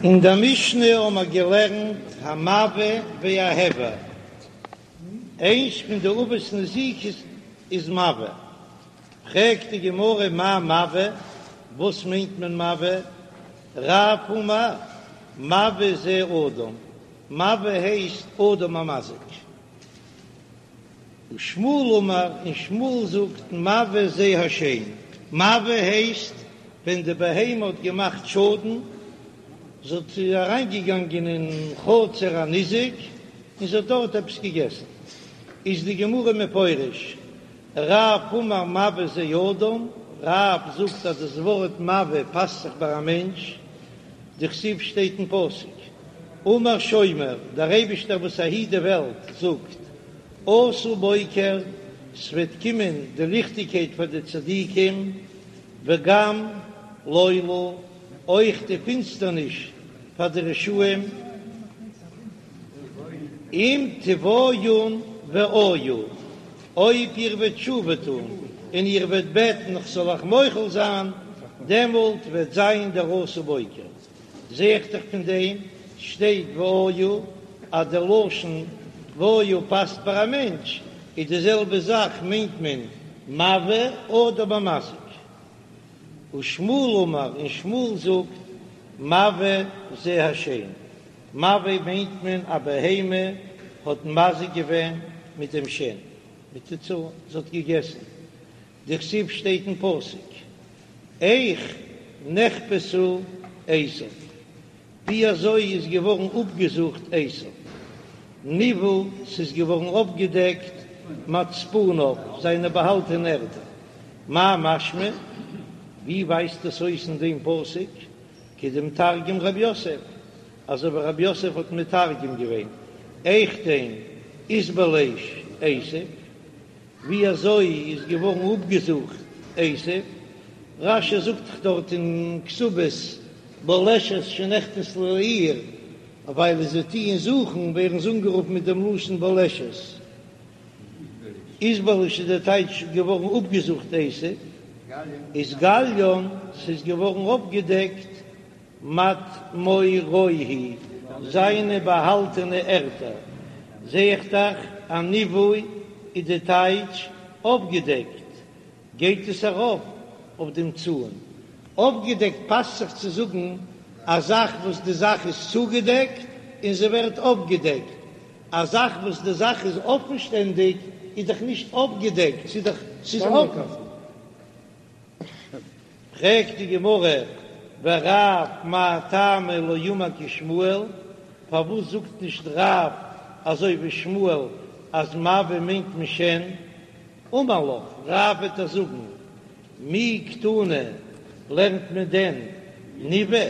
אין דער משנה האבן מיר געלערנט המבעה וההבער, איינס פון די אבות נזיקות איז מבעה, פרעגט די גמרא מאי מבעה, וואס מיינט מען מבעה? רב אמר מבעה זה אדם, מבעה הייסט אדם המזיק. ושמואל אמר, און שמואל זאגט מבעה זה השן, מבעה הייסט ווען די בהמה האט געמאכט שאדן, זי האט אריינגעגאנגען אין חצר הניזק און זי האט דארט עפעס געגעסן, איז די גמרא מפרש, רב אמר מבעה זה אדם, רב זאגט אז דאס ווארט מבעה פאסט זיך ביי א מענטש, דכתיב שטייט אין פסוק, אמר שומר, דער אייבישטער וואס ער היט די וועלט זאגט, אתא בוקר, ס'וועט קומען די ליכטיגקייט פאר די צדיקים, וגם לילה, אויך די פינסטערניש פאר די רשעים, אם תבעיון ואויו, אויב איר וועט תשובה טון און איר וועט בעטן איך זאל אייך מוחל זיין, דעמאלט וועט זיין דער אתא בוקר. זע איך דאך פון דעם שטייט ואויו אז דער לשון ואויו פאסט פאר א מענטש, איז די זעלבע זאך מיינט מען מבעה אדם המזיק. ושמואל אמר, און שמואל זאגט מבעה זה השן, מבעה מיינט מען א בהמה האט מזיק געווען מיט דעם שן, מיט די צאן, זי האט געגעסן, דכתיב שטייט אין פסוק, איך נחפשה עשו, ווי אזוי איז געווארן אפגעזוכט עשו, נבעו, ס'איז געווארן אפגעדעקט מצפוניו, זיינע באהאלטענע ערטער, מאי משמע, ווי ווייזט עס אויס אין דעם פסוק, כדמתרגם רב יוסף, אזוי ווי רב יוסף האט מתרגם געווען, איכדין אתבליש עשו, ווי אזוי איז געווארן אפגעזוכט עשו? רש"י זאגט דאך דארט אין כתובות בולשת שנכנסה לעיר, ווייל זיי טוען זוכן ווערן זיי אנגערופן מיט דעם לשון בולשת. אתבליש איז דער טייטש געווארן אפגעזוכט עשו, אתגליין ס'איז געווארן אפגעדעקט מטמרוהי, זיינע באהאלטענע ערטער, זע איך דאך אז נבעו איז די טייטש אפגעדעקט, גייט עס ארויף אויף דעם צאן. אפגעדעקט פאסט זיך צו זאגן א זאך וואס די זאך איז צוגעדעקט און זי ווערט אפגעדעקט, א זאך וואס די זאך איז אפן שטענדיג איז דאך נישט אפגעדעקט, ס'איז דאך ס'איז אפן. פרעגט די גמרא, ורב מאי טעמא לא אמר כשמואל, פארוואס זאגט נישט רב אזוי ווי שמואל אז מבעה מיינט מען שן? אמר לך, רב וועט דיר זאגן, מי קתני, לערנט מען דען נבעה?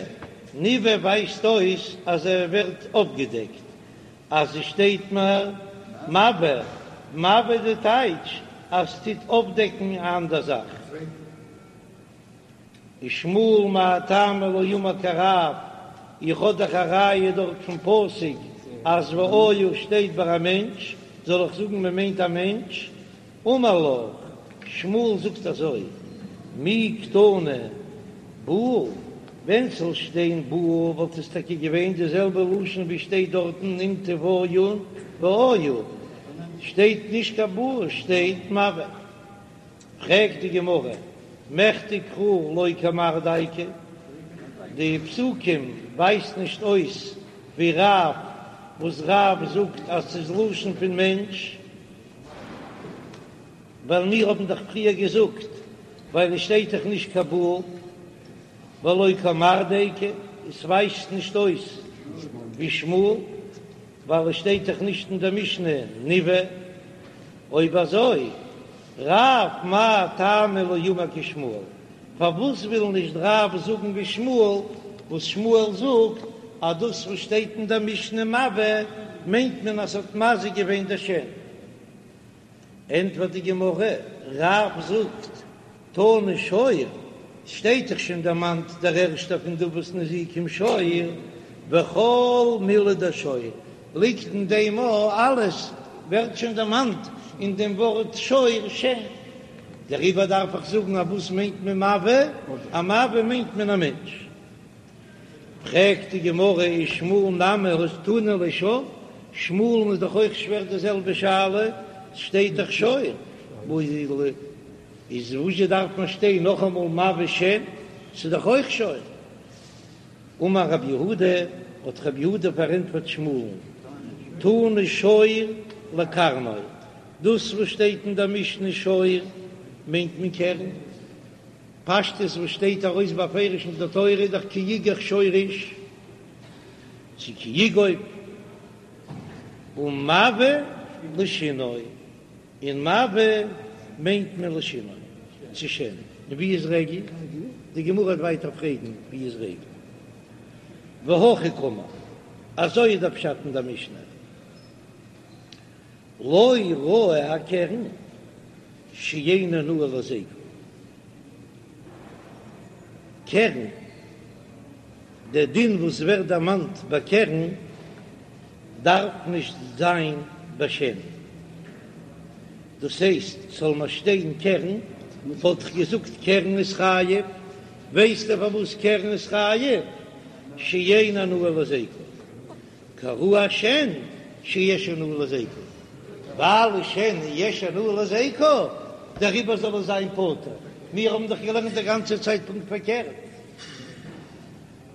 נבעה ווייזט אויס אז ער ווערט אפגעדעקט, אז עס שטייט מיר מבעה, מבעה די טייטש אז ס'טוט אפדעקן א אנדער זאך. ושמואל מאי טעמא לא אמר כרב, איך האב דאך א ראיה דארט פון פסוק אז ואיו שטייט ביי א מענטש, זאל איך זאגן מען מיינט א מענטש? אמר לך, שמואל זאגט אזוי, מי קתני בעא, ווען ס'זאל שטיין בעא וואלט עס טאקע געווען די זעלבע לשון ווי שטייט דארטן אם תבעיון ואיו, שטייט נישט קיין בעא שטייט מבעה. פרעגט די גמרא, מכדי קרא לא כמר דייקי, די פסוקים ווייזט נישט אויס ווי רב וואס רב זאגט אז ס'איז לשון פון מענטש, ווייל מיר האבן דאך פריער געזאגט ווייל עס שטייט דאך נישט קיין בעא ולא כמר דייקי, עס ווייזט נישט אויס ווי שמואל ווייל עס שטייט דאך נישט אין דער משנה נבעה, אויב אזוי רב מאי טעמא לא אמר כשמואל, פארוואס וויל נישט רב זאגן ווי שמואל, וואס שמואל זאגט אז דאס וואס שטייט אין דער משנה מבעה מיינט מען אז ס'האט מזיק געווען דער שן. ענטפערט די גמרא, רב זאגט, תנא שור, שטייט דאך שוין דערמאנט דער ערשטער פון די אבות נזיקין שור, וכל מילי דשור, ליגט אין דעם א אלעס ווערט שוין דערמאנט אין דעם ווארט שור שן, דעריבער דארף איך זאגן אז וואס מיינט מען מבעה? א מבעה מיינט מען א מענטש. פרעגט די גמרא ושמואל נמי הא תנא ליה שור, שמואל'ן איז דאך אויך שווער די זעלבע שאלה, ס'שטייט דאך שור, איז וואזשע דארף מען שטיין נאכאמאל מבעה שן, ס'איז דאך אויך שור. אמר רב יהודה, האט רב יהודה פארענטפערט שמואל'ן, תנא שור לקרנו, דאס וואס שטייט אין דער משנה שור מיינט מען קרן, פשטות וואס שטייט ארויס בפירוש אין דער תורה איז דאך כי יגח שור איש צו כי יגוף, ומבעה לשינו, און מבעה מיינט מען לשינו, צו שן, און ווי איז רגל? די גמרא וועט ווייטער פרעגן ווי איז רגל? והכי קאמר, אזוי איז דער פשט אין דער משנה, לא ראי הקרן שאין הנאה להזיקו, קרן, דער דין וואס ווערט דערמאנט ביי קרן דארף נישט זיין ביי שן, דאס הייסט זאל מיר שטיין קרן, וואלט איך געזאגט קרן איז חייב, ווייסטו פארוואס קרן איז חייב? שאין הנאה להזיקו, כראי השן שיש הנאה להזיקו, ווייל שן יש הנאה להזיקו, דעריבער זאל עס זיין פטור, מיר האבן דאך געלערנט די גאנצע צייט פונקט פארקערט.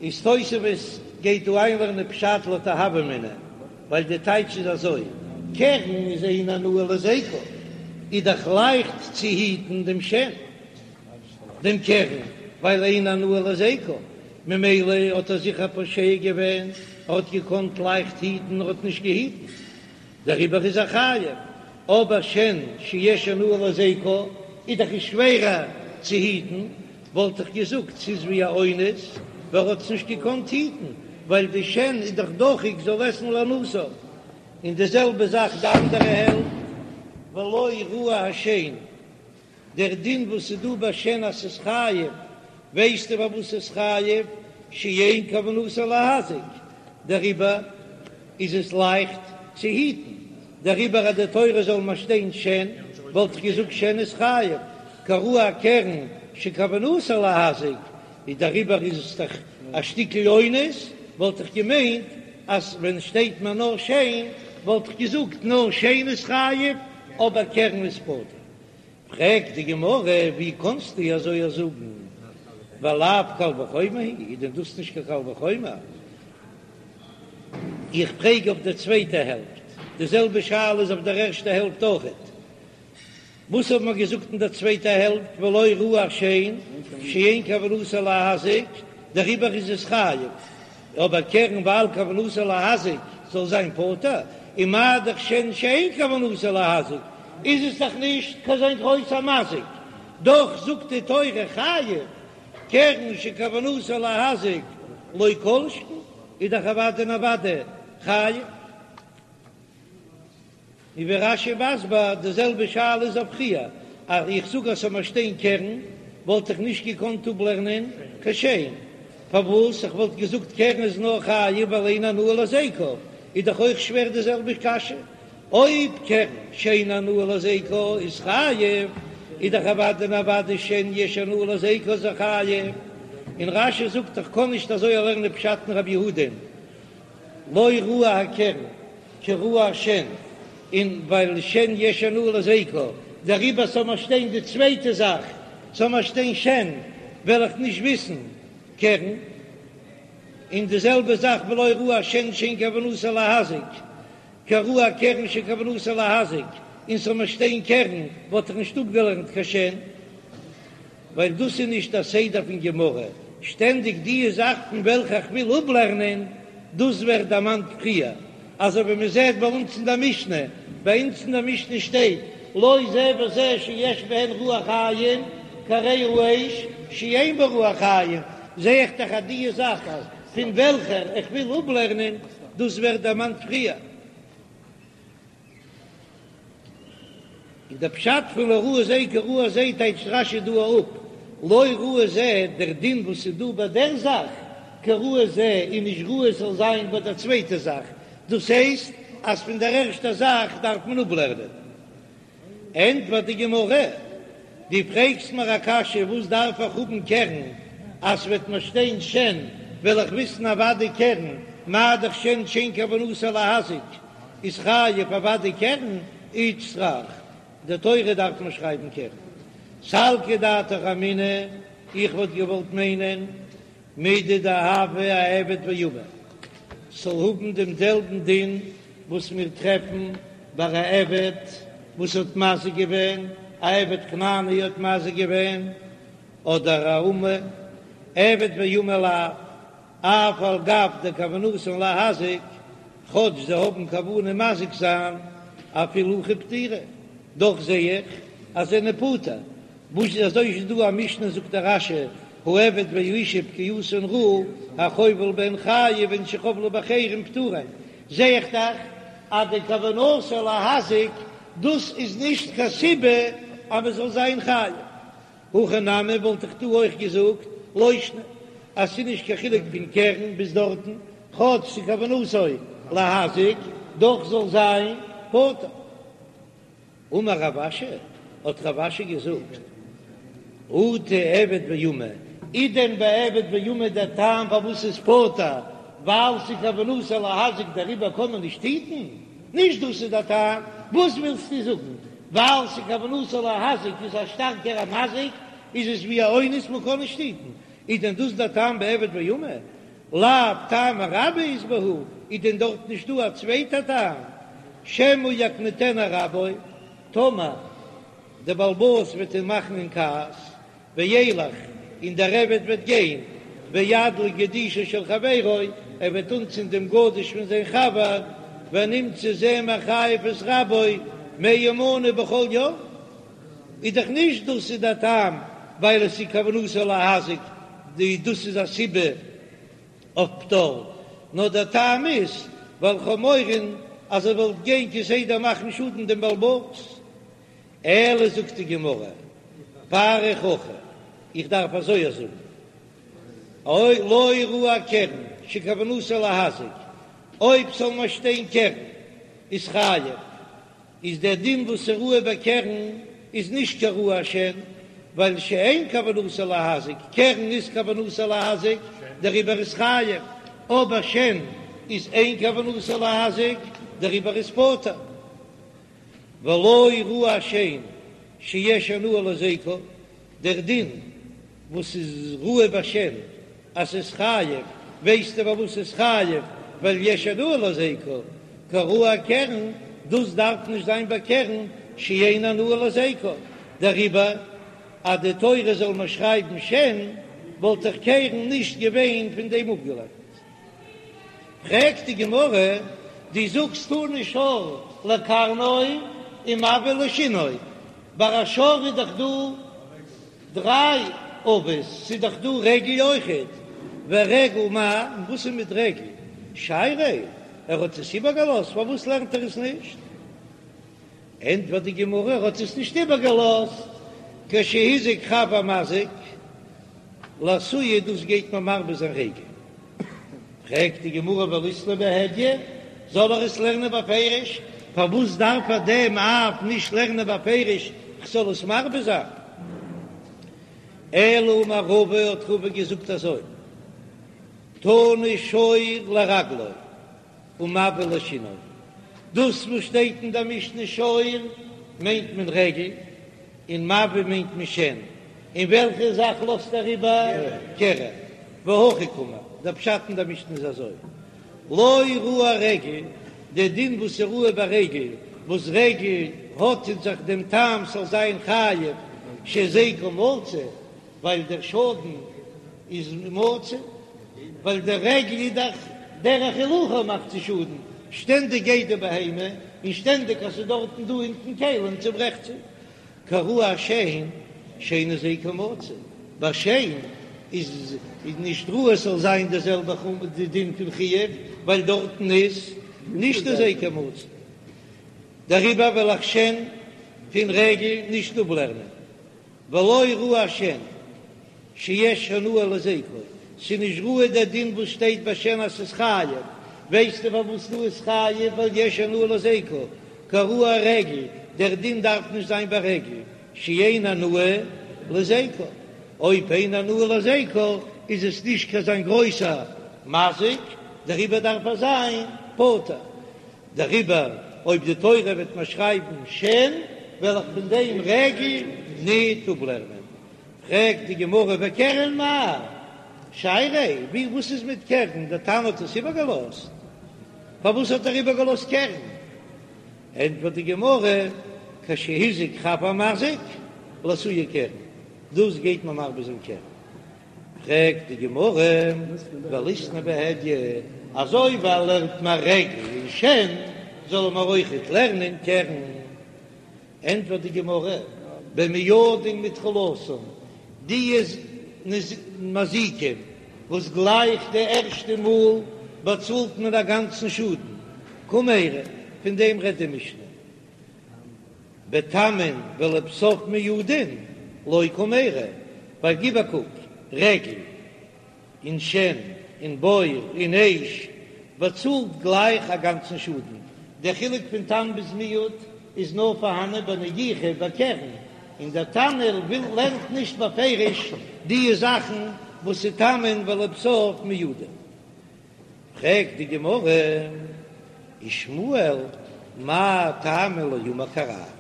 איז תוספות גייט דא איינלערנען פשט לויט א הוה אמינא, ווייל די טייטש איז אזוי, קרן איז אין הנאה להזיקו, איז דאך לייכט צו היטן דעם שן, דעם קרן, ווייל אין הנאה להזיקו, ממילא האט ער זיכער פושע געווען, ער האט געקאנט לייכט היטן, ער האט נישט געהיטן, דעריבער איז ער חייב, אבער שן שיש הנאה להזיקו איז דאך שווערער צו היטן, וואלט איך געזאגט ס'איז ווי א אונס, ווייל ער האט עס נישט געקאנט היטן, ווייל די שן איז דאך דוחק זאל עסן להנאתו, און די זעלבע זאך די אנדערע העלפט, ולא ראי השן. דער דין וואס איז דא ביי שן אז ס'איז חייב, ווייסטו פארוואס ס'איז חייב? שאין כוונתו להזיק, דעריבער איז עס לייכט צו היטן, דעריבער אז די תורה זאל מיר שטיין שן, וואלט איך געזאגט שן איז חייב, כראי הקרן שכוונתו להזיק, איז דעריבער איז עס דאך א שטיקל אונס, וואלט איך געמיינט אז ווען שטייט מיר נאר שן, וואלט איך געזאגט נאר שן איז חייב, אבער קרן איז פטור. פרעגט די גמרא, ווי קאנסטו אזוי זאגן, ולאו קל וחומר הוא, איז דען דאס נישט קיין קל וחומר? איך פרעג אויף דער צווייטע העלפט, די זעלבע שאלה איז אויף דער ערשטע העלפט אויכעט. וואס האט מען געזאגט אין דער צווייטע העלפט, ולא ראי השן שאין כוונתו להזיק, דעריבער איז עס חייב. אבער קרן ווייל כוונתו להזיק זאל זיין פטור, און מה דאך שן שאין כוונתו להזיק איז עס דאך נישט קיין אזוין גרויסע מזיק, דאך זאגט די תורה חייב, קרן שכוונתו להזיק לא כל שכן איז דאך אוודאי און אוודאי חייב. און ווי רש"י מסביר, די זעלבע שאלה איז אויף פריער, אז איך זאג אז ס'זאל מיר שטיין קרן, וואלט איך נישט געקאנט אפלערנען קיין שן, פארוואס איך וואלט געזאגט קרן איז נאר חייב ווייל אין הנאה להזיקו, איז דאך אויך שווער די זעלבע קשיא, אויב קרן שאין הנאה להזיקו איז חייב, איז דאך אוודאי און אוודאי שן יש הנאה להזיקו איז חייב, און רש"י זאגט איך קען נישט אזוי לערנען פשט אין רבי יהודה'ן, לא ראי הקרן כראי השן, און ווייל שן יש הנאה להזיקו, דעריבער זאל מיר שטיין די צווייטע זאך, זאל מיר שטיין שן, וועל איך נישט וויסן קרן, און די זעלבע זאך ולא ראי השן שאין כוונתו להזיק, כראי הקרן שכוונתו להזיק, און ס'זאל מיר שטיין קרן וואלט איך נישט אפגעלערנט קיין שן. ווייל דאס איז נישט א סדר פון גמרא, שטענדיג די זאך פון וועלכע איך וויל אפלערנען, דאס ווערט דערמאנט פריער, אזוי ווי מען זעט ביי אונז אין דער משנה, ביי אונז אין דער משנה שטייט לא זה וזה שיש בהן רוח חיים כהרי האש שאין בה רוח חיים, זע איך דאך אז די זאך פון וועלכער איך וויל אפלערנען, דאס ווערט דערמאנט פריער. און דער פשט פון לא ראי זה כראי זה טייטשט רש"י דא אפ, לא ראי זה, דער דין וואס איז דא ביי דער זאך, כראי זה, איז נישט ראוי עס זאל זיין ביי דער צווייטער זאך, דאס הייסט אז פון דער ערשטער זאך דארף מען אפלערנען. ענטפערט די גמרא, דו פרעגסט מיר א קשיא וואס דארף איך האבן קרן אז ס'וועט מיר שטיין שן? וועל איך וויסן אוודאי קרן, מה דאך שן שאין כוונתו להזיק איז חייב אוודאי קרן, איצטריך די תורה דארף מען שרייבן קרן. סלקא דעתך אמינא, איך וואלט געוואלט מיינען מידי דהוה אעבד ואמה, ס'זאל האבן דעם זעלבן דין וואס מיר טרעפן ביי א עבד וואס האט מזיק געווען, א עבד כנעני האט מזיק געווען, אדער א אמה, עבד ואמה לאו, אף על גב דכוונתן להזיק, כאטש זיי האבן כוונה מזיק זיין, אפילו הכי פטירי, דאך זע איך אז זיי זענען פטור, וואס איז אזוי איז דא א משנה זאגט דער רש"י העבד והאשה פגיעתן רעה החובל בהן חייב והן שחבלו באחרים פטורין, זע איך דאך אז די כוונתו להזיק דאס איז נישט קיין סיבה אז מען זאל זיין חייב. הכא נמי וואלט איך דא אויך געזאגט לא שנא אז ס'איז נישט קיין חילוק פון קרן ביז דארטן, כאטש ס'איז כוונתו להזיק דאך זאל זיין פטור. אמר רב אשי, האט רב אשי געזאגט, אטו עבד ואמה, איז דען ביי עבד ואמה דער טעם פארוואס ס'איז פטור ווייל ס'איז כוונתו להזיק דעריבער קען מען נישט היטן? נישט דאס איז דער טעם, וואס ווילסטו זאגן? ווייל ס'איז כוונתו להזיק איז א שטארקערע מזיק איז עס ווי א אונס מען קען נישט היטן, איז דען דאס דער טעם ביי עבד ואמה? לאו טעמא רבה אית בהו, איז דען דארט נישט דא א צווייטע טעם? שמא יקניטנו רבו, טאמער דער בעל הבית וועט אים מאכן אין כעס, וילך, און דער עבד וועט גיין, וידליק גדישו של חברו, ער וועט אנצינדן דעם גדיש פון זיין חבר, ונמצא זה מחייב את רבו מאה מנה בכל יום. איז דאך נישט דאס איז דער טעם ווייל עס איז כוונתו להזיק, די דאס איז א סיבה אויף פטור, נאר דער טעם איז ווייל כ'האב מורא אז ער וואלט גיין כסדר מאכן שאדן דעם בעל הבית. אלא זאגט די גמרא, פריך הכי, איך דארף אזוי זאגן, אוי לא ראי קרן שכוונתו להזיק, אויב ס'זאל נאר שטיין קרן איז חייב, איז דער דין וואס איז ראוי ביי קרן איז נישט כראי השן, ווייל שאין כוונתו להזיק, קרן איז כוונתו להזיק, דעריבער איז חייב, אבער שן איז אין כוונתו להזיק, דעריבער איז פטור. ולא ראי השן שיש הנאה להזיקו, דער דין וואס איז ראוי ביי שן אז ס'איז חייב, ווייסטו פארוואס ס'איז חייב? ווייל יש הנאה להזיקו, כראי הקרן, דאס דארף נישט זיין ביי קרן שאין הנאה להזיקו, דעריבער אז די תורה זאל מיר שרייבן שן, וואלט דאך קרן נישט געווען פון דעם אפגעלערנט. פרעגט די גמרא, דו זאגסט תני שור לקרנו ומבעה לשינו, ביי א שור איז דאך דא דריי אבות, ס'איז דאך דא רגל אויכעט, ורגל מאי, און וואס איז מיט רגל? שייריה, ער האט עס איבערגעלאזט, פארוואס לערנט ער עס נישט? ענטפערט די גמרא, ער האט עס נישט איבערגעלאזט, כשהזיק חב המזיק, לאתויי דאס גייט מען מרבה זיין רגל. פרעגט די גמרא וליתנייה בהדיא, זאל ער עס לערנען בפירוש, פארוואס דארף ער דעם אב נישט לערנען בפירוש, כ'זאל עס מרבה זיין? אלא אמר רבא האט רבא געזאגט אזוי, תני שור לרגלו ומבעה לשינו, דאס וואס שטייט אין דער משנה שור מיינט מען רגל, און מבעה מיינט מען שן, און וועלכע זאך לאזט ער איבער? קרן. והכי קאמר, דער פשט אין דער משנה איז אזוי, לא ראי רגל, דער דין וואס איז ראוי ביי רגל, וואס רגל האט אין זיך דעם טעם ס'זאל זיין חייב שהזיקו מצוי, ווייל דער שאדן איז מצוי, ווייל דער רגל איז דאך דרך הילוכה מאכט צו שאדן, שטענדיג גייט די בהמה, און שטענדיג אז ס'איז דארטן דא אונטן כלים צוברעכט זי. כראי השן שאין הזיקו מצוי, ביי שן איז נישט ראוי עס זאל זיין די זעלבע די דין פון חיוב, ווייל דארטן איז נישט הזיקו מצוי, דעריבער וועל איך שן פון רגל נישט אפלערנען. ולא ראי השן שיש הנאה להזיקו, ס'איז נישט ראוי דער דין וואס שטייט ביי שן אז ס'איז חייב, ווייסטו פארוואס דא איז חייב ווייל יש הנאה להזיקו, כראי הרגל, דער דין דארף נישט זיין ביי רגל, שאין הנאה להזיקו, אויב אין הנאה להזיקו. איז עס נישט קיין אזוין גרויסע מזיק, דעריבער דארף ער זיין פטור. דעריבער אויב די תורה וועט מיר שרייבן שן, וועל איך פון דעם רגל ניט אפלערנען. פרעגט די גמרא וקרן מאי שייריה, ווי וואס איז מיט קרן, דער תנא האט עס איבערגעלאזט, פארוואס האט ער איבערגעלאזט קרן? ענטפערט די גמרא, כשהזיק חב המזיק לאתויי קרן, דאס גייט מען מרבה זיין קרן. פרעגט די גמרא, וליתני בהדיא, אזוי ווי ער לערנט מיר רגל און שן, זאל ער מיר אויכעט לערנען קרן. ענטפערט די גמרא, במועדין מתחילתן, די מזיקים וואס גלייך די ערשטע מאל באצאלט מען א גאנצן שאדן, קמיירי, פון דעם רעדט די משנה, בתמין ולבסוף מועדין לא קמיירי, ווייל גיב א קוק, רגל און שן און בור און אש באצאלט גלייך א גאנצן שאדן, דער חילוק פון תם ביז מועד איז נאר פארהאנען ביי נגיחה ביי קרן, און דער תנא וויל לערנט נישט בפירוש די זאכן וואס איז תמין ולבסוף מועדין. פרעגט די גמרא, ושמואל מאי טעמא לא אמר כרב,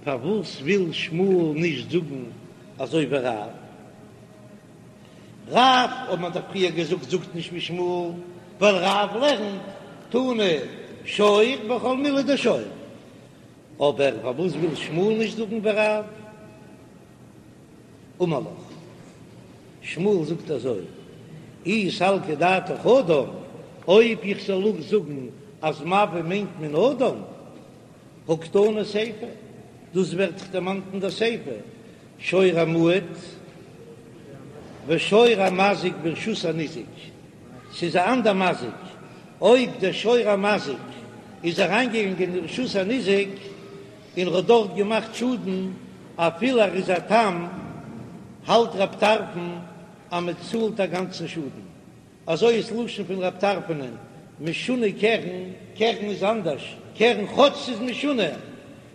פארוואס וויל שמואל נישט זאגן אזוי ווי רב? רב האט מען דאך פריער געזאגט זאגט נישט ווי שמואל, ווייל רב לערנט תנא שור בכל מילי דשור, אבער פארוואס וויל שמואל נישט זאגן ווי רב? אמר לך, שמואל זאגט אזוי, אי סלקא דעתך אדם, אויב איך זאל אויך זאגן אז מבעה מיינט מען אדם, הא קתני סיפא, דאס ווערט דאך דערמאנט אין דער סיפא, שור המועד ושור המזיק ברשות הניזק, ס'איז א אנדער מזיק, אויב דער שור המזיק איז אריינגעגאנגען אין רשות הניזק און ר'האט דארט געמאכט שאדן, אפילו ער איז א תם, האלט רב טרפון אז מ'צאלט א גאנצן שאדן. אזוי איז לשון פון רב טרפונ'ען, משונה קרן, קרן איז אנדערש, קרן כאטש ס'איז משונה,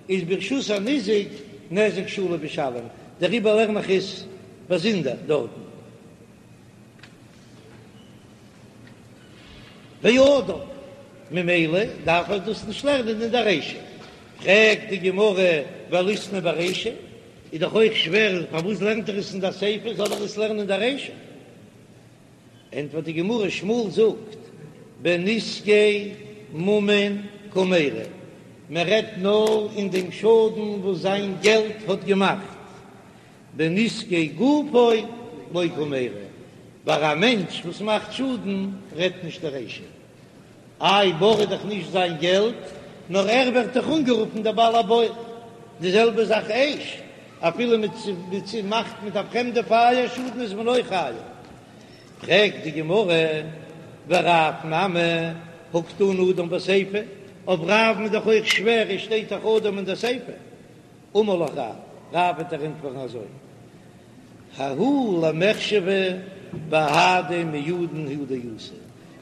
איז ברשות הניזק נזק שלם משלם, דעריבער לערן איך עס באזונדער דארטן. ואדם, ממילא דארף ער דאס נישט לערנען אין די רישא. פרעגט די גמרא וליתני ברישא, איז דאך אויך שווער, פארוואס לערנט ער עס אין די סיפא, זאל ער עס לערנען אין די רישא? ענטפערט די גמרא, שמואל זאגט בנזקי ממון קמיירי, מען רעדט נאר אין דעם שאדן וואס זיין געלט האט געמאכט, בנזקי גופו לא קמיירי, ביי א מענטש וואס מאכט שאדן רעדט נישט די רישא. איי בור איז דאך נישט זיין געלט, נאר ער ווערט דאך אנגערופן דער בעל הבור. די זעלבע זאך אש, אפילו מען מאכט מיט א פרעמדע פייער שאדן איז מען אויך חייב. פרעגט די גמרא, ורב נמי הא קתני אדם בסיפא, אויף רב'ן איז דאך אויך שווער, עס שטייט דאך אדם אין די סיפא. אמר לך רב, רב וועט דיר ענטפערן אזוי, ההוא למחשבא בהדי מועדין הוא דאתא,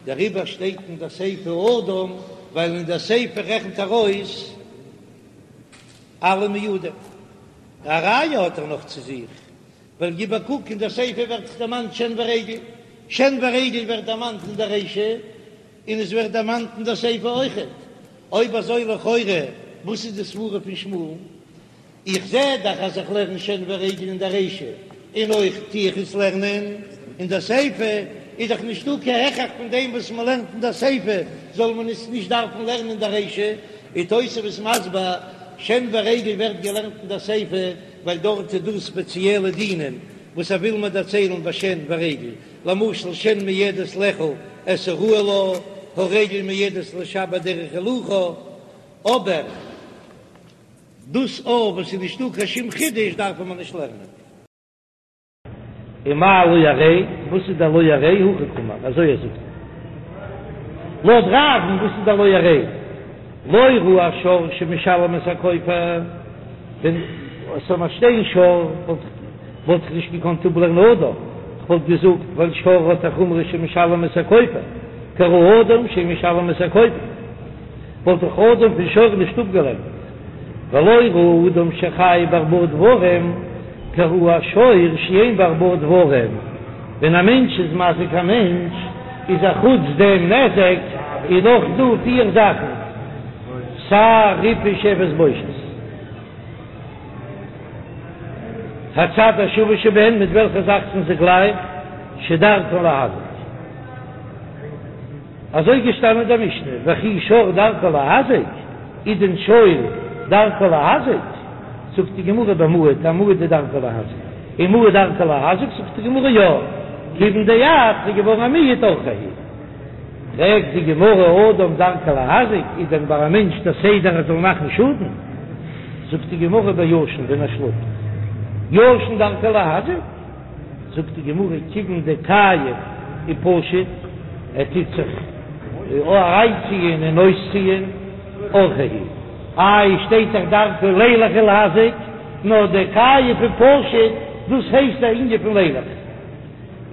דעריבער שטייט אין דער סיפא אדם, ווייל אין דער סיפא רעכנט ער אויס אלע מועדים. א ראיה האט ער נאך צו זיך, ווייל גיב א קוק אין דער סיפא ווערט דאך דערמאנט שן ורגל, שן ורגל ווערט דערמאנט אין דער רישא, און עס ווערט דערמאנט אין דער סיפא אויכעט. אויב אזוי לכאורה וואס איז די סברה פון שמואל'ן? איך זע דאך אז איך לערן שן ורגל אין דער רישא, און אויך טו איך עס לערנען אין דער סיפא, איז דאך נישטא קיין הכרח פון דעם וואס מען לערנט אין דער סיפא זאל מען עס נישט דארפן לערנען אין דער רישא. איז תוספות מסביר, שן ורגל ווערט געלערנט אין דער סיפא ווייל דארט איז דא ספעציעלע דינים וואס ער וויל מיר דערציילן ביי שן ורגל, למשל שן מועדת לאכול את הראוי לה, הרגל מועדת לשבר דרך הילוכה, אבער דאס אויף וואס איז נישטא קיין שום חידוש דארף מען נישט לערנען. ומאי לא הרי, וואס איז דער לא הרי? הכי קאמר, אזוי ער זאגט לויט רב'ן, וואס איז דער לא הרי? לא ראי השור שמשלם את הכופר, ווען עס זאל נאר שטיין שור וואלט איך נישט געקאנט אפלערנען אדם, כ'וואלט געזאגט ווייל שור האט א חומרא שמשלם את הכופר, כראי אדם שמשלם את הכופר. וואלט איך אדם פון שור נישט אפגעלערנט, ולא ראי אדם שחייב בארבעה דברים, כראי השור שאין בו ארבעה דברים. ווען א מענטש איז מזיק א מענטש, איז א חוץ דעם נזק איז נאך דא פיר זאכן, צער, ריפוי, שבת, בושת. הצד השווה שבהן, מיט וועלכע זאך זענען זיי גלייך, שדרכן להזיק. אזוי געשטאנען אין דער משנה, וכי שור דרכו להזיק, איז דען שור דרכו להזיק? זאגט די גמרא במועד, א מועד איז דרכו להזיק, ומועד דרכו להזיק? זאגט די גמרא יא, כיוון דאיעד איז געווארן א מועד אורחיה הוא. פרעגט די גמרא אדם דרכו להזיק, איז דען ביי א מענטש דער סדר ער זאל מאכן שאדן? זאגט די גמרא בישן ווען ער שלאפט, ישן דרכו להזיק? זאגט די גמרא כיוון דכייף ופשיט, ער טוט זיך אריינציען און אויסציען, אורחיה הוא, איי שטייט דאך דרכו לילך ולהזיק, נאר דכייף ופשיט דאס הייסט א ענין פון לילך.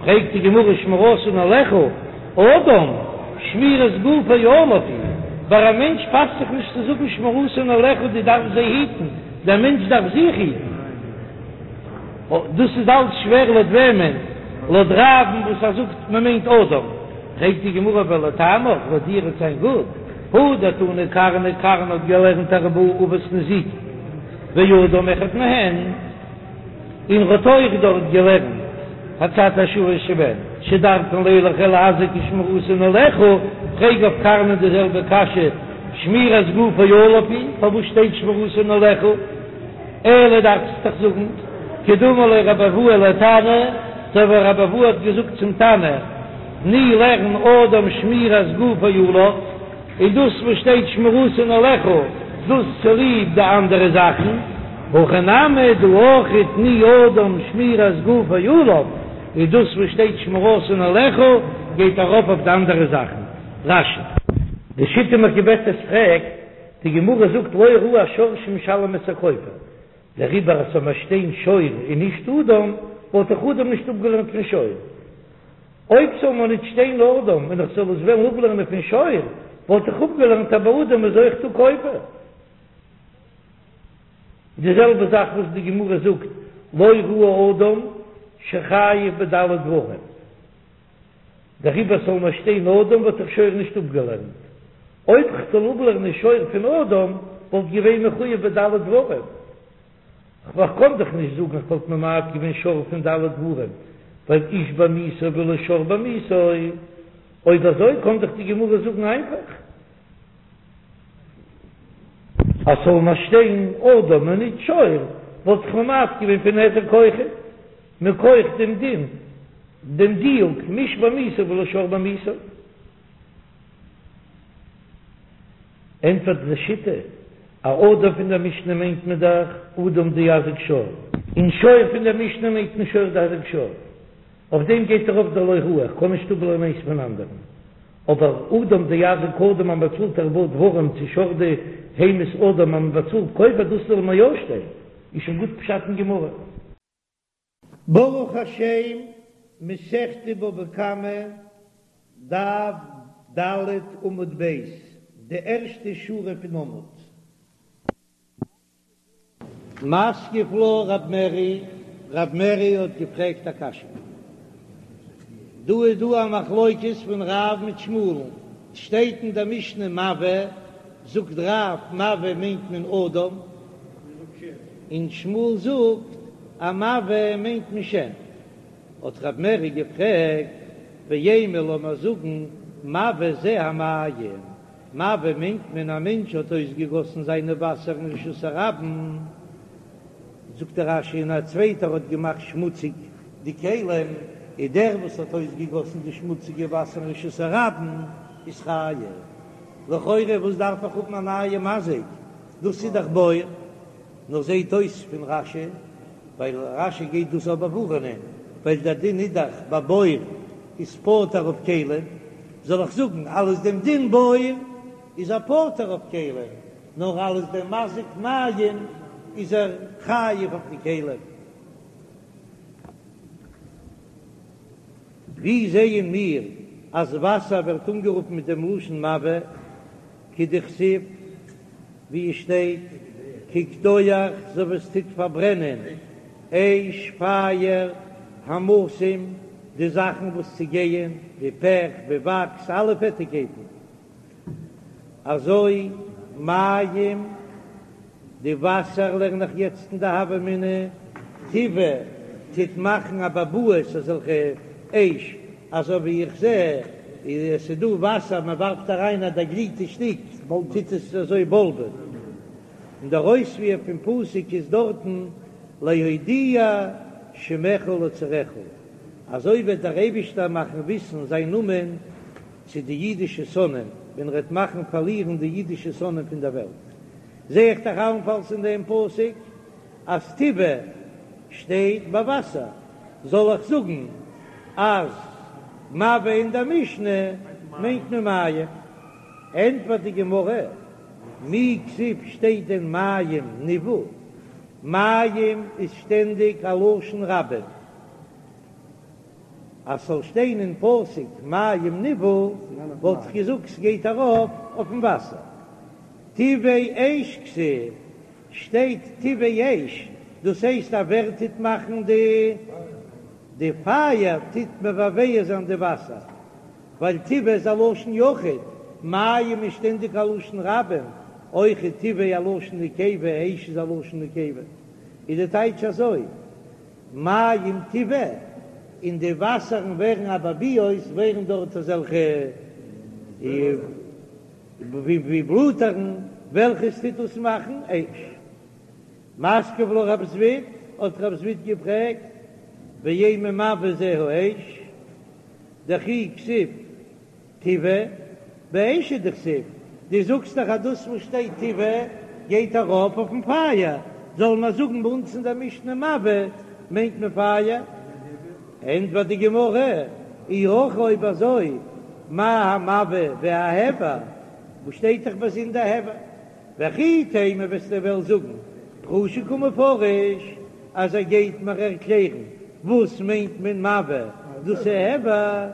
פרעגט די גמרא שמירתן עליך, אדם שמירת גופו עליו היא, ביי א מענטש פאסט זיך נישט צו זאגן שמירתן עליך דו דארפסט זיי היטן, דער מענטש דארף זיך היטן. דאס איז אלץ שווער לויט וועמען? לויט רב'ן וואס ער זאגט מען מיינט אדם. פרעגט די גמרא ולטעמיך, לויט דיר וועט זיין גוט, הא דתני קרנא, קרנא האט געלערנט ארבעה אבות נזיקין ואדם אחד מהן, און ר'האט אויך דארט געלערנט הצד השוה שבהן שדרכן לילך ולהזיק ושמירתן עליך, פרעג אויף קרנא די זעלבע קשיא שמירת גופו עליו היא, פארוואס שטייט שמירתן עליך? אלא דארפסט דאך זאגן, כדאמר ליה רבי אבהו לתנא, אזוי ווי רבי אבהו האט געזאגט צום תנא, תני לערן אדם שמירת גופו עליו, און דאס וואס שטייט שמירתן עליך, דאס צוליב די אנדערע זאכן, הכא נמי דא אויך תני אדם שמירת גופו עליו, און דאס וואס שטייט שמירתן עליך גייט ארויף אויף די אנדערע זאכן. רש"י. די שיטה מקובצת פרעגט, די גמרא זאגט לא ראי שור שמשלם את הכופר, דעריבער אז ס'זאל מיר שטיין שור און נישט אדם, וואלט איך אדם נישט אפגעלערנט פון שור. אויב ס'זאל מיר נישט שטיין אדם און איך זאל עס וועלן אפלערנען פון שור, וואלט איך אפגעלערנט אז ביי אדם איז אויך דא כופר. די זעלבע זאך וואס די גמרא זאגט לא ראי אדם שחייב בד' דברים. דעריבער זאל מיר שטיין אדם וואלט איך שור נישט אפגעלערנט. אויב כ'זאל אפלערנען שור פון אדם וואלט געווען מחויב בד' דברים. כ'קען דאך נישט זאגן איך וואלט ממעט געווען שור פון ד' דברים, ווייל איש בעמיתו ולא שור בעמיתו. אויב אזוי קען דאך די גמרא זאגן איינפאך אז ס'זאל מיר שטיין אדם און נישט שור וואלט איך ממעט געווען פון היזק אויכעט מכח דעם דין. דעם דיוק, מאיש בעמיתו ולא שור בעמיתו. ענטפערט די שיטה, א אדם פון דער משנה מיינט מען דאך אדם דאזיק שור, און שור פון דער משנה מיינט מען שור דאזיק שור, אויף דעם גייט ארויף דער לא ראי, איך קען נישט אפלערנען איינס פון אנדערן, אבער אדם דאזיק אדם אז מען באצאלט ארבעה דברים צו שור דהמית אדם אז מען באצאלט כופר דאס זאל מיר יא שטיין, איז שוין גוט פשט אין גמרא. ברוך השם, מסכת בבא קמא, דף ד' עמוד ב', די ערשטע שורה פון עמוד. מתקיף לה רב מרי, רב מרי האט געפרעגט א קשיא. דא איז דא א מחלוקת פון רב מיט שמואל'ן, שטייט אין דער משנה מבעה, זאגט רב מבעה מיינט מען אדם, און שמואל זאגט אז מבעה מיינט מען שן. האט רב מרי געפרעגט, ואימא לאמער זאגן מבעה זה המים, מבעה מיינט מען א מענטש האט אויסגעגאסן זיינע וואסער אין רשות הרבים, זאגט דער רש"י און א צווייטער האט געמאכט שמוציג די כלים, איז דער וואס האט אויסגעגאסן די שמוציגע וואסער אין רשות הרבים איז חייב. לכאורה וואס דארף איך האבן א נייע מזיק, דאס איז דאך בור. נאר זעהט אויס פון רש"י, ווייל רש"י גייט דאס אבער באווארענען, ווייל דער דין איז דאך ביי בור איז פטור אויף כלים, זאל איך זאגן אלס דעם דין בור איז ער פטור אויף כלים, נאר אלס דעם מזיק מים איז ער חייב אויף די כלים. ווי זעען מיר אז וואסער ווערט אנגערופן מיט דעם לשון מבעה? כדכתיב, ווי עס שטייט, כקדוח אזוי ווי עס טוט פארברענען, אש פייער, המתים. די זאכן וואס צעגייען, ווי פעך, ווי וואקס, אלע פעטיקייטן. אזוי מים, די וואסער לערן איך יעצט אין די הוה אמינא, תבעה טוט מאכן אבעבועות אזעלכע אש, אזוי ווי איך זע עס איז דא וואסער מען ווארפט אריין א דערגליטע שטיק טוט עס אזוי בולבען, און דער אויספיר פון פסוק איז דארטן להודיע שמך לצריך, אזוי וועט דער אייבישטער מאכן וויסן זיין נאמען צו די אידישע שונאים, ווען ער וועט מאכן פארלירן די אידישע שונאים פון דער וועלט. זע איך דאך אלנפאלס אין דעם פסוק אז תבעה שטייט ביי וואסער, זאל איך זאגן אז מבעה אין דער משנה מיינט מען מים? ענטפערט די גמרא, מי כתיב שטייט דען מים נבעו? מים איז שטענדיג א לשון רבים. אז ס'זאל שטיין אין פסוק מים נבעו וואלט איך געזאגט ס'גייט ארויף אויפן וואסער. תבעה אש כתיב, שטייט תבעה אש, דאס הייסט אז ווער טוט מאכן די די פייער טוט מבעבע זיין די וואסער, ווייל תבעה איז א לשון יחיד, מים איז שטענדיג א לשון רבים, אויך איז תבעה א לשון נקבה, אש איז א לשון נקבה, איז די טייטש אזוי. מים תבעה, און די וואסערן ווערן אבעבועות, ווערן דארט אזעלכע ווי בלאטערן, וועלכעס טוט דאס מאכן אש. מתקיף לה רב זביד, האט רב זביד געפרעגט, ואימא מבעה זה האש, דכי כתיב תבעה, באש הוא דכתיב, דו זאגסט דאך אז דאס וואס שטייט תבעה גייט ארויף אויפן פייער, זאל מען זאגן ביי אונז אין דער משנה מבעה מיינט מען פייער? ענטפערט די גמרא, אי הכי אויב אזוי מה המבעה וההבער, וואס שטייט דאך באזונדער הבער? וכי תימא וועסטו וועלן זאגן פרושי קא מפרש אז ער גייט מיר ערקלערן וואס מיינט מען מבעה, דאס איז הבער.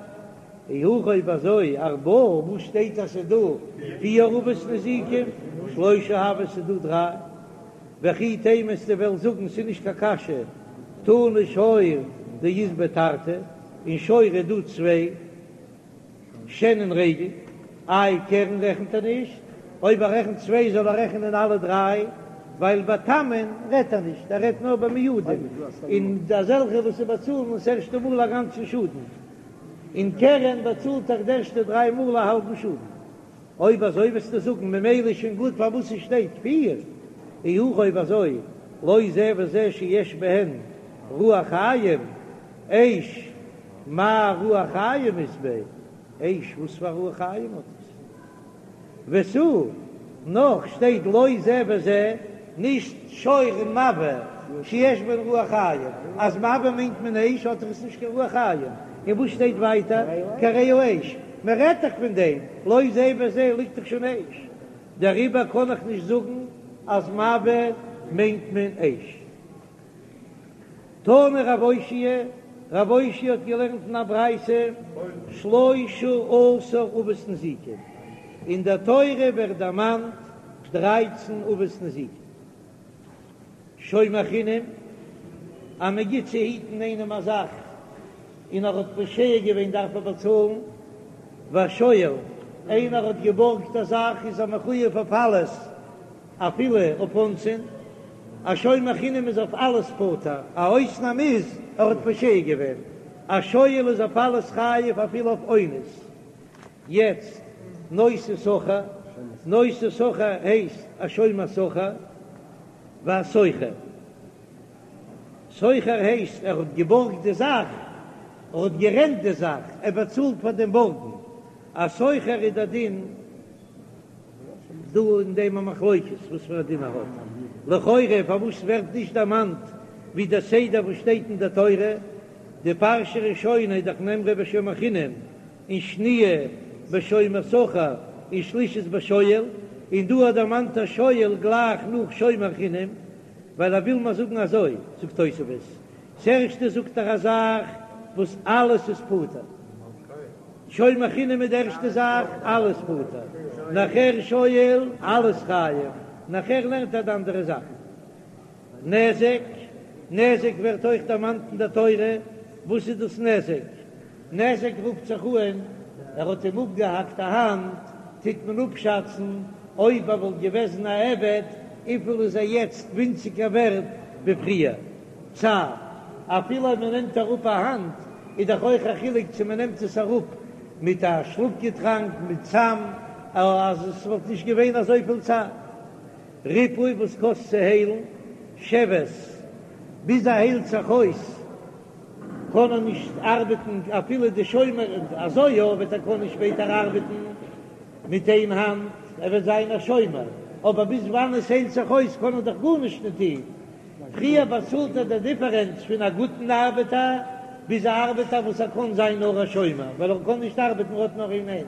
אי הכי אויב אזוי ארבעה וואס שטייט אז ס'איז דא פיר אבות נזיקין שלושה הוו ס'איז דא דריי וכי תימא וועסטו וועלן זאגן ס'איז נישט קיין קשיא תנא שור דאית ביה תרתי אין שור איז דא צוויי שן און רגל איי קרן רעכנט ער נישט אויב ער רעכנט צוויי זאל ער רעכענען אלע דריי ווייל ביי תמין רעדט ער נישט ער רעדט נאר ביי מועדים און אזעלכע וואס באצאלן עס ערשטע מאל א גאנצן שאדן. און קרן באצאלט דאך די ערשטע דריי מאל א האלבן שאדן. אויב אזוי וועסטו זאגן ממילא איז שוין גוט פארוואס עס שטייט פיר. אי הכי אויב אזוי לא זה וזה שיש בהן רוח חיים, אש מאי רוח חיים אית ביה, אש וואס פאר רוח חיים האט עס? ותו, נאך שטייט לא זה וזה, נישט שור און מבעה, שיש בהן רוח חיים, אז מבעה מיינט מען אש האט דאך עס נישט קיין רוח חיים, און וואס שטייט ווייטער כי הרי האש, מען רעדט דאך פון דעם, לא זה וזה ליגט דאך שוין אש, דעריבער קען איך נישט זאגן אז מבעה מיינט מען אש. תנא רב אושעיא, רב אושעיא האט געלערנט אין א ברייתא, שלשה עשר אבות נזיקין, אין דער תורה ווערט דערמאנט דרייצן אבות נזיקין, שומר חינם, אז מען גיט צו היטן איינעם א זאך און ער האט פושע געווען דארף ער באצאלן, והשואל, איינער האט געבארגט א זאך איז ער מחויב אויף אלעס, אפילו אויף אונסין, א שומר חינם איז אויף אלעס פטור, א אויסנאם איז ער האט פושע געווען, א שואל איז אויף אלעס חייב אפילו אויף אונס. יעצט נושא שכר, נושא שכר הייסט א שומר שכר, והשוכר, שוכר הייסט ער האט געבארגט די זאך, ער האט גערענט די זאך, ער באצאלט פאר דעם בארגן, א שוכר איז דער דין. דא אין דעם א מחלוקת וואס פאר א דין ער האט. לכאורה פארוואס ווערט נישט דערמאנט ווי דער סדר וואס שטייט אין דער תורה, די פרשה ראשונה איז דאך נאמרה בשומר חינם, און שניה בשומר שכר, און שלישית בשואל, און דא האט דערמאנט א שואל גלייך נאך שומר חינם, ווייל ער וויל מיר זאגן אזוי, זאגט תוספות, ס'ערשטע זאגט ער א זאך וואס אלעס איז פטור. שומר חינם איז די ערשטע זאך, אלעס פטור. נאכער שואל, אלעס חייב. נאכער לערנט ער די אנדערע זאכן. נזק, נזק ווערט אויך דערמאנט אין דער תורה. וואס איז דאס נזק? נזק רופט זיך אן, ער האט אים אפגעהאקט א האנט, טוט מען אפשאצן אויב ער וואלט געוועזן א עבד, וויפיל איז ער יעצט ווינציגער ווערט ווי פריער. צער, אפילו אויב מען נעמט אראפ א האנט, איז דאך אויך א חילוק צו מען נעמט עס אראפ מיט א שלאף געטראנק, מיט סם, אז עס וואלט נישט געווען אזויפיל צער. ריפוי וואס קאסט צו היילן, שבת, ביז ער היילט זיך אויס קען ער נישט ארבעטן, אפילו די שומר אזוי יא וועט ער קענען שפעטער ארבעטן מיט איין האנט, ער וועט זיין א שומר, אבער ביז וואנען עס היילט זיך אויס קען ער דאך גארנישט נישט טון, פריער באצאלט ער די דיפערענץ פון א גוטן ארבעטער ביז א ארבעטער וואס ער קען זיין נאר א שומר ווייל ער קען נישט ארבעטן ער האט נאר איין הענט,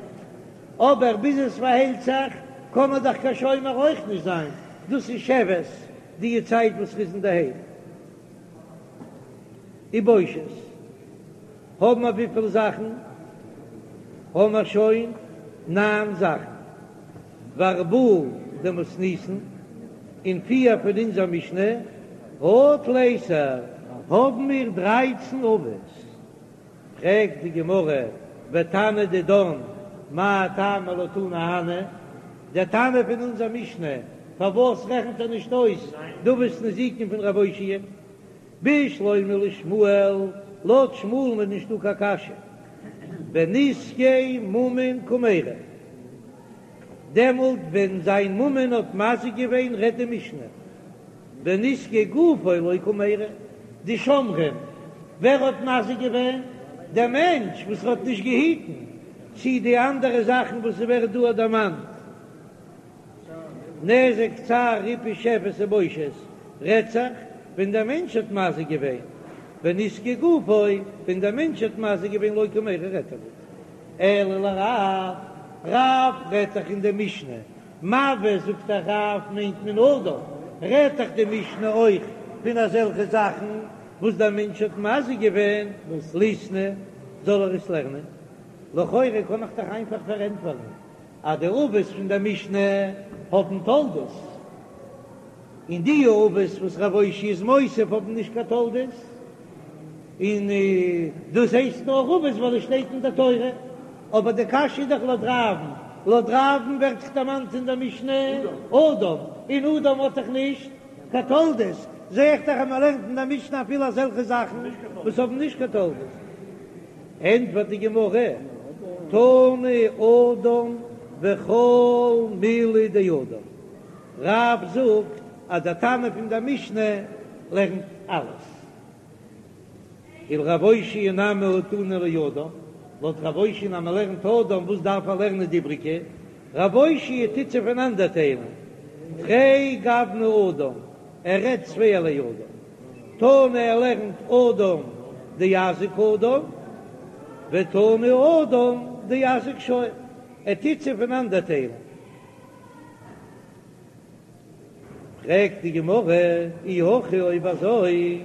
אבער ביז עס פארהיילט זיך קען ער דאך קיין שומר אויך נישט זיין, דאס איז שבת די צייט וואס ר'איז אינדערהיים. ובושת האבן מיר וויפיל זאכן? האבן מיר שוין ניין זאכן. וארבעה דמתניתין, און פיר פון אונזער משנה, הא תליסר, האבן מיר דרייצן אבות. פרעגט די גמרא, ותנא דידן, מאי טעמא לא תני הני, דער תנא פון אונזער משנה, פארוואס רעכנט ער נישט אויס די אבות נזיקין פון רב אושעיא? בשלמא לשמואל, לויט שמואל'ן איז נישטא קיין קשיא, בנזקי ממון קמיירי, דעמאלט ווען זיין ממון האט מזיק געווען רעדט די משנה, בנזקי גופו לא קמיירי, די שומרים, ווער האט מזיק געווען? דער מענטש וואס האט נישט געהיטן, צי די אנדערע זאכן וואס ס'ווערט דא דערמאנט, נזק צער ריפוי שבת ובושת, רעדט זיך ווען דער מענטש האט מזיק געווען, בנזקי גופו, ווען דער מענטש האט מזיק געווען לא קמיירי רעדט ער ניט. אלא לרב, רב רעדט דאך אין די משנה, מבעה זאגט דאך רב מיינט מען אדם, רעדט דאך די משנה אויך פון אזעלכע זאכן וואס דער מענטש האט מזיק געווען, ליתני, זאל ער עס לערנען. לכאורה קען איך דאך איינפאך פארענטפערן אז די אבות פון דער משנה האבן תולדות, און די אבות וואס רב אושעיא איז מוסיף האבן נישט קיין תולדות, און דאס הייסט נאר אבות ווייל עס שטייט אין דער תורה, אבער די קשיא איז דאך לויט רב'ן, לויט רב'ן ווערט דאך דערמאנט אין דער משנה אדם, און אדם האט דאך נישט קיין תולדות, זע איך דאך אז מען לערנט אין דער משנה אפילו אזעלכע זאכן וואס האבן נישט קיין תולדות. ענטפערט די גמרא, תני אדם וכל מילי דאדם, רב זאגט אז דער תנא פון דער משנה לערנט אלעס. ולרב אושעיא נמי הא תנא לאדם, לויט רב אושעיא אז מען לערנט אדם וואס דארף ער לערנען די איבריגע? רב אושעיא טוט זיי פונאנדערטיילן, תרי גווני אדם, ער רעדט צווייערליי אדם, תנא ער לערנט אדם דאזיק אדם, ותנא אדם דאזיק שור, ער טוט זיי פונאנדערטיילן. פרעגט די גמרא, אי הכי אויב אזוי,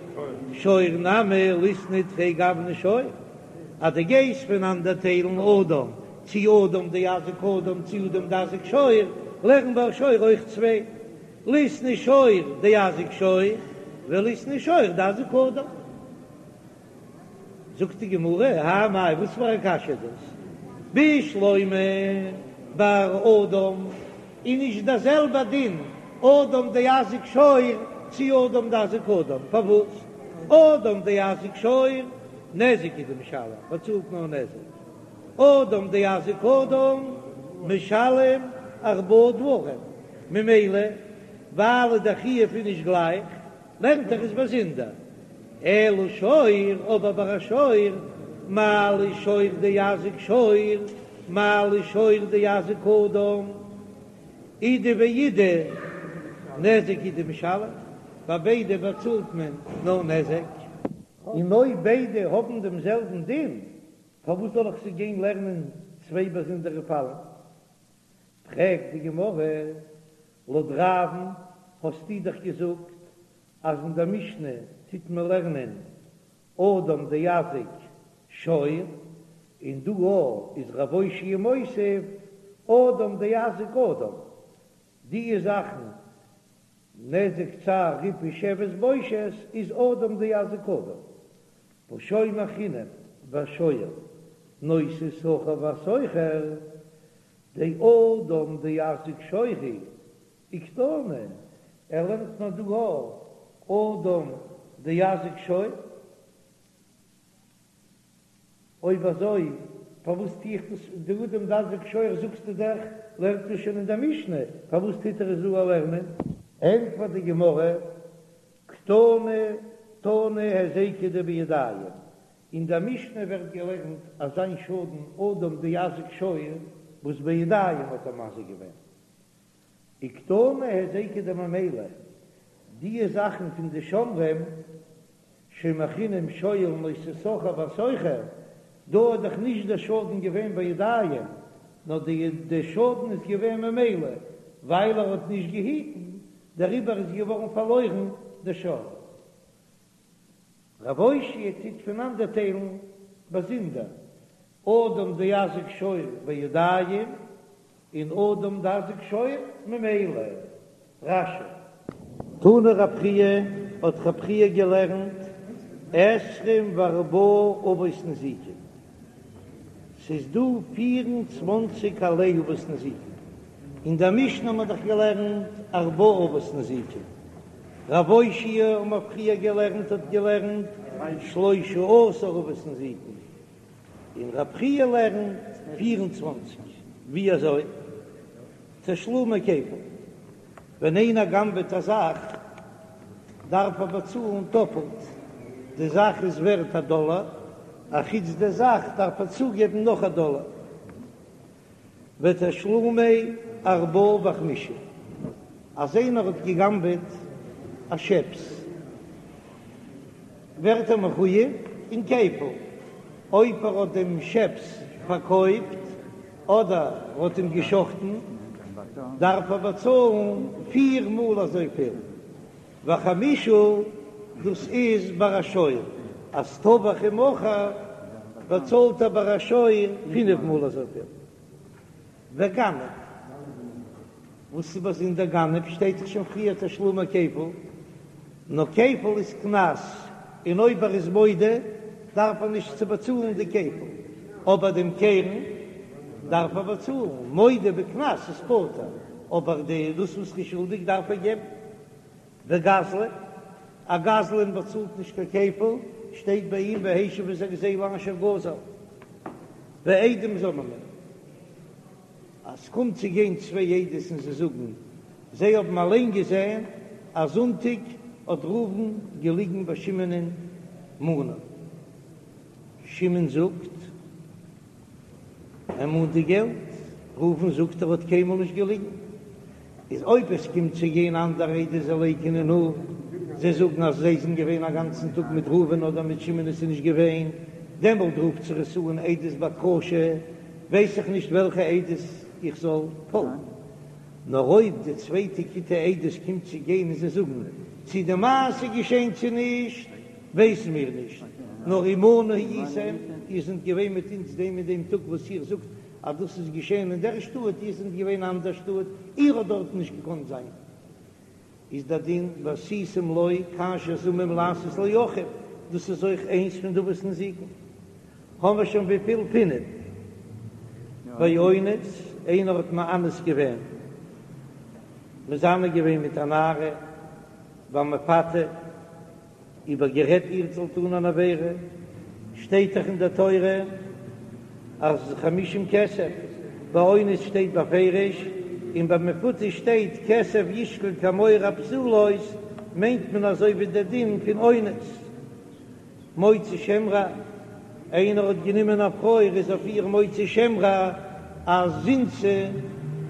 שור נמי ליתני תרי גווני שור, אז דו גייסט פונאנדערטיילן אדם, צי אדם דאזיק אדם צי אדם דאזיק שור, לערן ביי שור אויך צוויי, ליתני שור דאזיק שור, וליתני שור דאזיק אדם. זאגט די גמרא, האי מאי, וואס פאר א קשיא איז דאס? בשלמא ביי אדם איז נישט דער זעלבע דין אדם דאזיק שור צי אדם דאזיק אדם, פארוואס אדם דאזיק שור נזק הוא דמשלם באצאלט נאר נזק, אדם דאזיק אדם משלם ארבעה דברים, ממילא ווייל דער חיוב איז נישט גלייך לערנט ער עס באזונדער. אלא שור, אבער ביי א שור, מה לי שור דאזיק שור, מה לי שור דאזיק אדם, אידי ואידי נזק הוא דמשלם, ביי ביידע באצאלט מען נאר נזק. און אויב ביידע האבן דעם זעלבן דין, פארוואס זאל איך זיי גיין לערנען צוויי באזונדערע פאלן? פרעגט די גמרא, לויט רב'ן האסטו דאך געזאגט אז אין דער משנה טוט מען לערנען אדם דאזיק שור, און דא איז רב אושעיא מוסיף אדם דאזיק אדם, די זאכן נזק צער ריפוי שבת בושת איז אדם דאזיק אדם, והא שומר חינם והשואל. נושא שכר והשוכר, דאדם דאזיק שור הוא וקתני, ער לערנט מיר דא א אדם דאזיק שור. אויב אזוי פארוואס טו איך דאס, דאדם דאזיק שור זאגסטו דאך לערנט מען שוין אין דער משנה, פארוואס טוט ער עס דא לערנען? ענטפערט די גמרא, קתני תנא היזקא דבידיים, אין דער משנה ווערט געלערנט אזא שאדן אדם דאזיק שור וואס בידיים האט ער מזיק געווען, וקתני היזקא דממילא, די זאכן פון די שומרים שומר חינם שואל נושא שכר והשוכר, דא איז דאך נישט דער שאדן געווען בידיים, נאר די די שאדן איז געווען ממילא ווייל ער האט נישט געהיטן, דעריבער איז געווארן פארלוירן די שור. רב אושעיא טוט פונאנדערטיילן באזונדער אדם דאזיק שור בידיים און אדם דאזיק שור ממילא. רש"י. תנא רב חייא, האט רב חייא געלערנט עשרים וארבעה אבות נזיקין, ס'איז דא פיר און צוואנציג ערליי אבות נזיקין, אין דער משנה האט מען דאך געלערנט ארבעה אבות נזיקין, רב אושעיא האט מען פריער געלערנט האט געלערנט שלשה עשר אבות נזיקין, און רב חייא לערנט 24, ווי אזוי? תשלומי כפל, ווען איינער גנב'עט א זאך דארף ער באצאלן טאפלט, די זאך איז ווערט א דאלער, אחוץ די זאך דארף ער צוגעבן נאך א דאלער. ותשלומי ארבעה וחמישה, אז איינער האט געגנבעט א שעפס ווערט ער מחויב אין כפל, אויב ער האט דעם שעפס פארקויפט אדער ער האט אים געשחטן דארף ער באצאלן פיר מאל אזויפיל, וחמישה דאס איז ביי א שור, אז טבח ומכר באצאלט ער ביי א שור פינף מאל אזויפיל. וגנב, וואס איז באזונדער גנב שטייט דאך שוין פריער תשלומי כפל, נאר כפל איז קנס, און אויב ער איז מודה דארף ער נישט צו באצאלן די כפל, אבער דעם קרן דארף ער באצאלן, מודה בקנס איז פטור, אבער די דאס וואס ער איז שולדיג דארף ער געבן. וגזלן, א גזלן באצאלט נישט קיין כפל, שטייט ביי אים והשיב את הגזילה אשר גזל. ועדים זוממין, אז ס'קומט צו גיין צוויי עדות און זיי זאגן זיי האבן אליין געזען אז זונטאג האט ראובן געליגן ביי שמעונ'ען מנה, שמעון זאגט ער מאנט די געלט, ראובן זאגט ער האט קיינמאל נישט געליגן, איז אויב עס קומט צו גיין אנדערע עדות זיי לייקענען אפ, זיי זאגן אז זיי זענען געווען א גאנצן טאג מיט ראובן אדער מיט שמעון עס איז נישט געווען, דעמאלט רופט זיך עס אן עדות בהכחשה, ווייס איך נישט וועלכע עדות איך זאל פאלגן. נאר אויב די צווייטע כיתה עדות קומט צו גיין און זיי זאגן צי די מעשה געשען צו נישט ווייסן מיר נישט, נאר עמנו הייתם, איר זענט געווען מיט אונז דעם און דעם טאג וואס איר זאגט אז דאס איז געשען אין דער שטאט, איר זענט געווען אין אנדער שטאט, איר האט דארטן נישט געקאנט זיין. איז דער דין ועשיתם לו כאשר זמם לעשות לאחיו, דאס איז אויך איינס פון די אבות נזיקין. האבן מיר שוין וויפיל? פינף. ואונס, איינער האט מאנס געווען, מזנה געווען מיט א נערה, והמפתה, איבערגערעדט איר זאל טון אן עבירה, שטייט דאך אין דער תורה אז חמישים כסף, ביי אונס שטייט בפירוש, און ביי מפותה שטייט כסף ישקל כמוהר הבתולות, מיינט מען אזוי ווי דער דין פון אונס. מוציא שם רע, איינער האט גענומען א פרוי ער איז אויף איר מוציא שם רע אז זינתה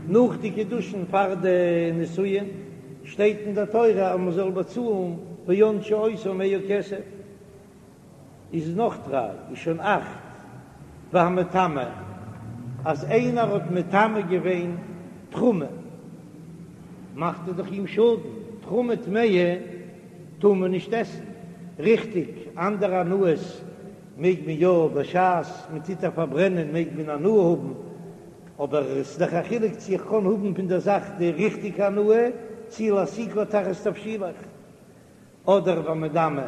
נאך די קידושין פאר די נישואין, שטייט אין די תורה אז מען זאל באצאלן וענשו אותו מאה כסף, איז נאך דריי איז שוין אכט, והמטמא אז איינער האט מטמא געווען תרומה מאכט ער דאך אים שאדן, תרומה טמאה טאר מען נישט עסן, ריכטיג, אנדערע הנאות מעג מען יא, בשעת מען טוט איר פארברענען מעג מען הנאה האבן, אבער עס איז דאך א חילוק צו איך קען האבן פון דער זאך די ריכטיגע הנאה, צו להסיקה תחת תבשילך, אדער והמדמע,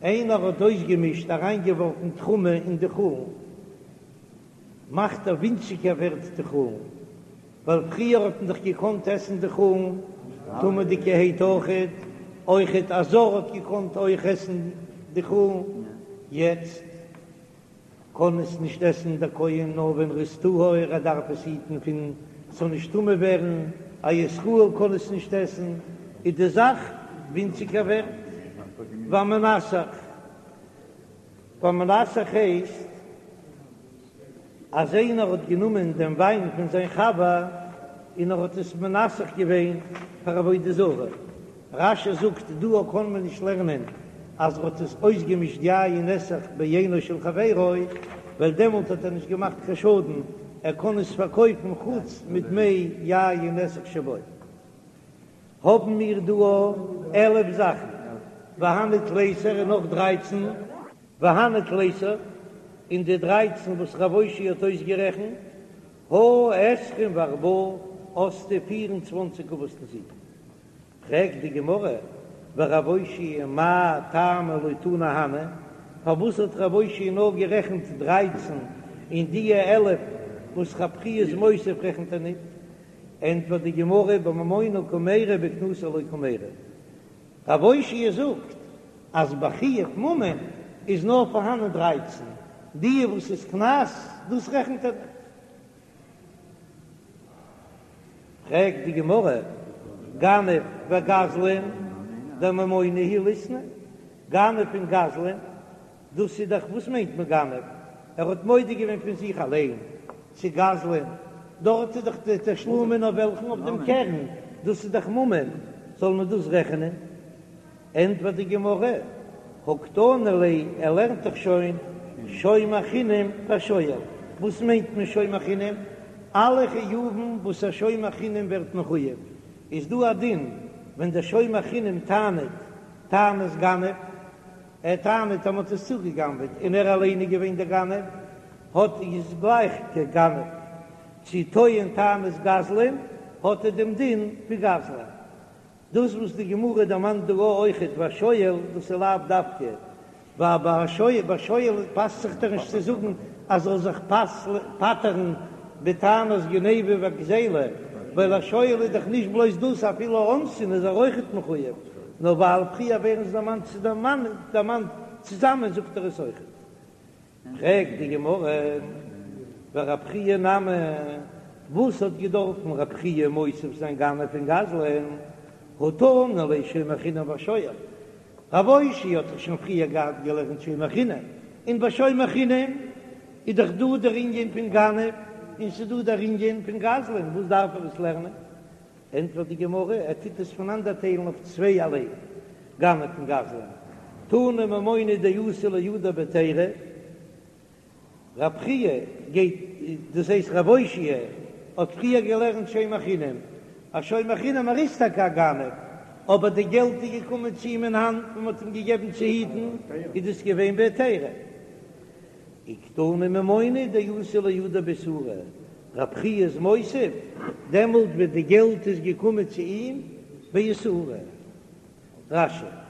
איינער האט אויסגעמישט אריינגעווארפן תרומה אין די חולין. מאכט ער ווינציגער ווערט די חולין, ווייל פריער האט מען דאך געקאנט עסן די חולין טמא'דיגערהייט אויכעט, אויכעט א זר האט געקאנט אויך עסן די חולין, יעצט קען עס נישט עסן דער כהן נאר ווען ר'איז טהור, ער דארף עס היטן פון ס'זאל נישט טמא ווערן, א ישראל קען עס נישט עסן, איז די זאך ווינציגער ווערט. והמנסך, והמנסך הייסט אז איינער האט גענומען דעם וויין פון זיין חבר און ער האט עס מנסך געווען פאר עבודה זרה, רש"י זאגט דא קען מען נישט לערנען אז ער האט עס אויסגעמישט יין נסך ביינו של חברו, ווייל דעמאלט האט ער נישט געמאכט קיין שאדן, ער קען עס פארקויפן חוץ מדמי יין נסך שבו. האבן מיר דא 11 זאכן, והני תליסר און נאך דרייצן, והני תליסר און די דרייצן וואס רב אושעיא האט אויסגערעכנט, הא עשרים וארבעה האסטו פיר און צוואנציג אבות נזיקין. פרעגט די גמרא, ורב אושעיא מאי טעמא לא תני הני, פארוואס האט רב אושעיא נאר גערעכנט דרייצן און דיע 11 וואס רב חייא איז מוסיף רעכנט ער ניט? ענטפערט די גמרא, בממונא קמיירי בקנסא לא קמיירי. רב אושעיא זאגט אז ביי חיוב ממון איז נאר פארהאנען דרייצן, דיע וואס איז קנס דאס רעכנט ער ניט. פרעגט די גמרא, גנב וגזלן דממונא הוא ליתני, גנב און גזלן, דאס איז דאך, וואס מיינט מען גנב? ער האט מודה געווען פון זיך אליין צו גזלן, דארט איז דאך די תשלומין אויף וועלכן? אויף דעם קרן, דאס איז דאך ממון, זאל מען דאס רעכענען? ענטפערט די גמרא, הא קתני ליה, ער לערנט דאך שוין שומר חינם ושואל, וואס מיינט מען שומר חינם? אלע חיובים וואס א שומר חינם ווערט מחויב, איז דא א דין ווען דער שומר חינם טענה'ט טענת גנב, ער טענה'ט אז מ'האט עס צוגע'גנב'עט און ער אליין איז געווען דער גנב, האט איז גלייך כגנב, צו טוען טענת גזלן, האט ער דעם דין ווי גזלן. דאס וואס די גמרא דערמאנט דא אויכעט והשואל, דאס איז לאו דווקא, ווייל ביי שואל, ביי שואל פאסט זיך דאך נישט צו זאגן אז זאל זיך פטר'ן בטענת גניבה וגזילה, ווייל א שואל איז דאך נישט בלויז דאס, אפילו אונסין איז ער אויכעט מחויב, נאר ווייל פריער ווערן זיי דערמאנט דערמאנט צוזאמען זאגט ער עס אויכעט. פרעגט די גמרא, ורב חייא נמי, וואס האט געדארפן רב חייא מוסיף זיין גנב און גזלן, הא תנא ליה שומר חינם והשואל, רב אושעיא האט דאך שוין פריער געהאט געלערנט שומר חינם, און ביי שומר חינם איז דאך דא דער ענין פון גנב און ס'איז דא דער ענין פון גזלן, וואס דארף ער עס לערנען? ענטפערט די גמרא, ער טוט עס פונאנדערטיילן אויף צווייערליי, גנב און גזלן, תנא ממונא דאתא לידיה בהיתירא, רב חייא גייט, דאס הייסט רב אושעיא האט פריער געלערנט שומר חינם, א שומר חינם ער איז טאקע א גנב, אבער די געלט איז געקומען צו אים אין האנט און מען האט אים געגעבן צו היטן, איז דאס געווען בהיתירא. וקתני ממונא דאתא לידיה באיסורא, רב חייא איז מוסיף, דעמאלט ווען די געלט איז געקומען צו אים באיסורא. רש"י.